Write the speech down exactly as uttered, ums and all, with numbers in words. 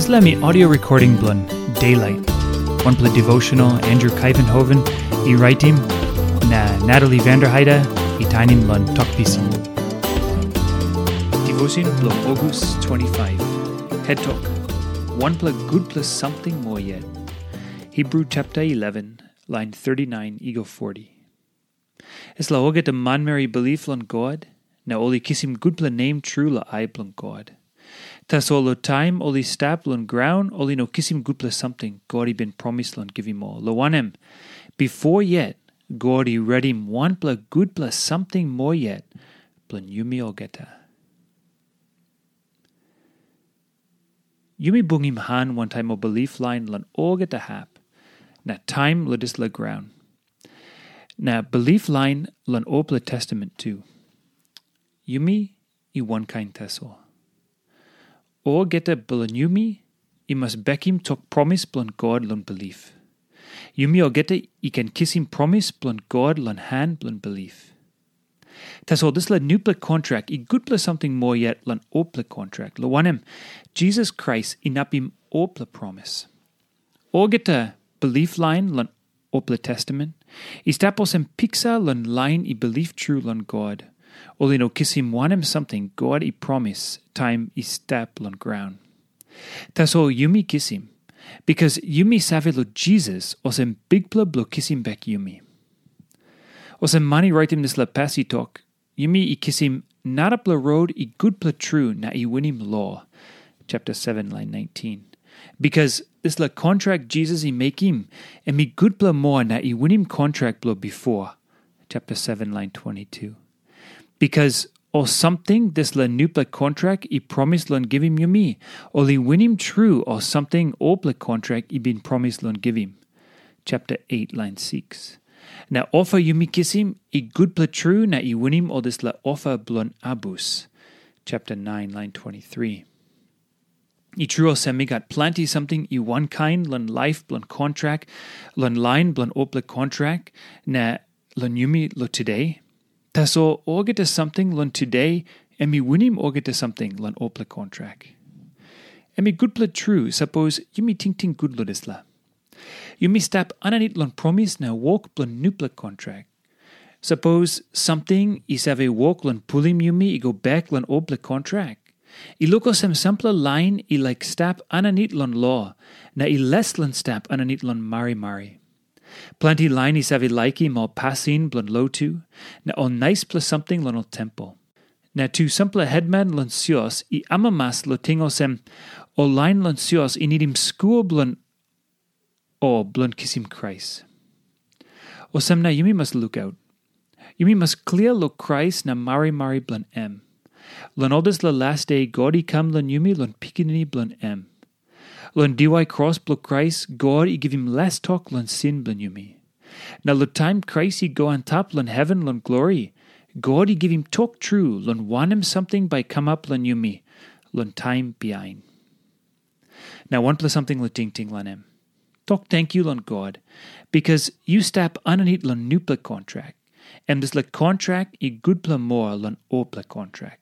Dispela mi audio recording bilong Daylight, wanpela devotional Andrew Kuyvenhoven i raitim, na Natalie Vanderheide i tainim long Tok Pisin. Devotion bilong August twenty-five. Head Talk. Wanpela gutpela samting moa yet. Hebrew chapter eleven, line thirty-nine i go forty. Dispela olgeta manmeri i bilip long God, na ol i kisim gutpela nem tru long ai bilong God. Tasol long taim ol i stap long graun, ol i no kisim gutpela samting God i bin promis long givim ol. Long wanem, bipo yet God i redim wanpela gutpela samting moa yet bilong yumi olgeta. Yumi bungim han wantaim ol bilip lain long olgeta hap, na taim long dispela graun. Na bilip lain long olpela testamen tu. Yumi i wankain tasol. Olgeta bilong yumi i mas bekim tok promis bilong God long bilip. Yumi olgeta i ken kisim promis bilong God long han bilong bilip. Tasol dispela nupela kontrak i gutpela samting moa yet long olpela kontrak, long wanem, Jisas Krais inapim olpela promis. Olgeta bilip lain long olpela testamen i stap olsem piksa long lain i bilip tru long God. Ol i no kisim wanem samting God i promis taim i stap long graun. Tasol yumi kisim, bikas yumi save long Jisas olsem Bikpela bilong kisim bek yumi. Olsem man i raitim dispela pas i tok, yumi i kisim narapela rot i gutpela tru na i winim lo, chapter seven, line nineteen. Bikas dispela kontrak Jisas i mekim, em i gutpela moa na i winim kontrak bilong bipo, chapter seven, line twenty-two. Bikas ol samting dispela nupela kontrak i promis long givim yumi, ol i winim tru ol samting olpela kontrak i bin promis long givim, chapter eight, line six. Na ofa yumi kisim i gutpela tru na i winim ol dispela ofa bilong abus, chapter nine, line twenty-three. I tru olsem, i gat planti samting i wankain long laip bilong kontrak, long lain bilong olpela kontrak, na long yumi long tude. Tasol olgeta samting long tude, em i winim olgeta samting long olpela kontrak. Em i gutpela tru, sapos yumi tingting gut long dispela. Yumi stap aninit long promis na wok bilong nupela kontrak. Sapos samting i save wok long pulim yumi i go bek long olpela kontrak, i luk olsem sampela lain i laik stap aninit long lo, na i les long stap aninit long marimari. Planti lain i save laikim ol pasin bilong lotu, na ol naispela samting long ol tempel. Na tu sampela hetman long sios i amamas long ting olsem, ol lain long sios i nidim skul bilong o bilong kisim Krais. Olsem na yumi mas lukaut. Yumi mas klia long Krais na marimari bilong em. Long ol dispela las de God i kam long yumi long Pikinini bilong em. Long diwai kros bilong Krais, God i givim les tok long sin bilong yumi. Na long taim Krais i go antap long heven long glori, God i givim tok tru long wanem samting bai kamap long yumi long taim bihain. Na wanpela samting long tingting long em. Tok tenkyu long God, bikas yu stap aninit long nupela kontrak, em dispela kontrak i gutpela moa long olpela kontrak.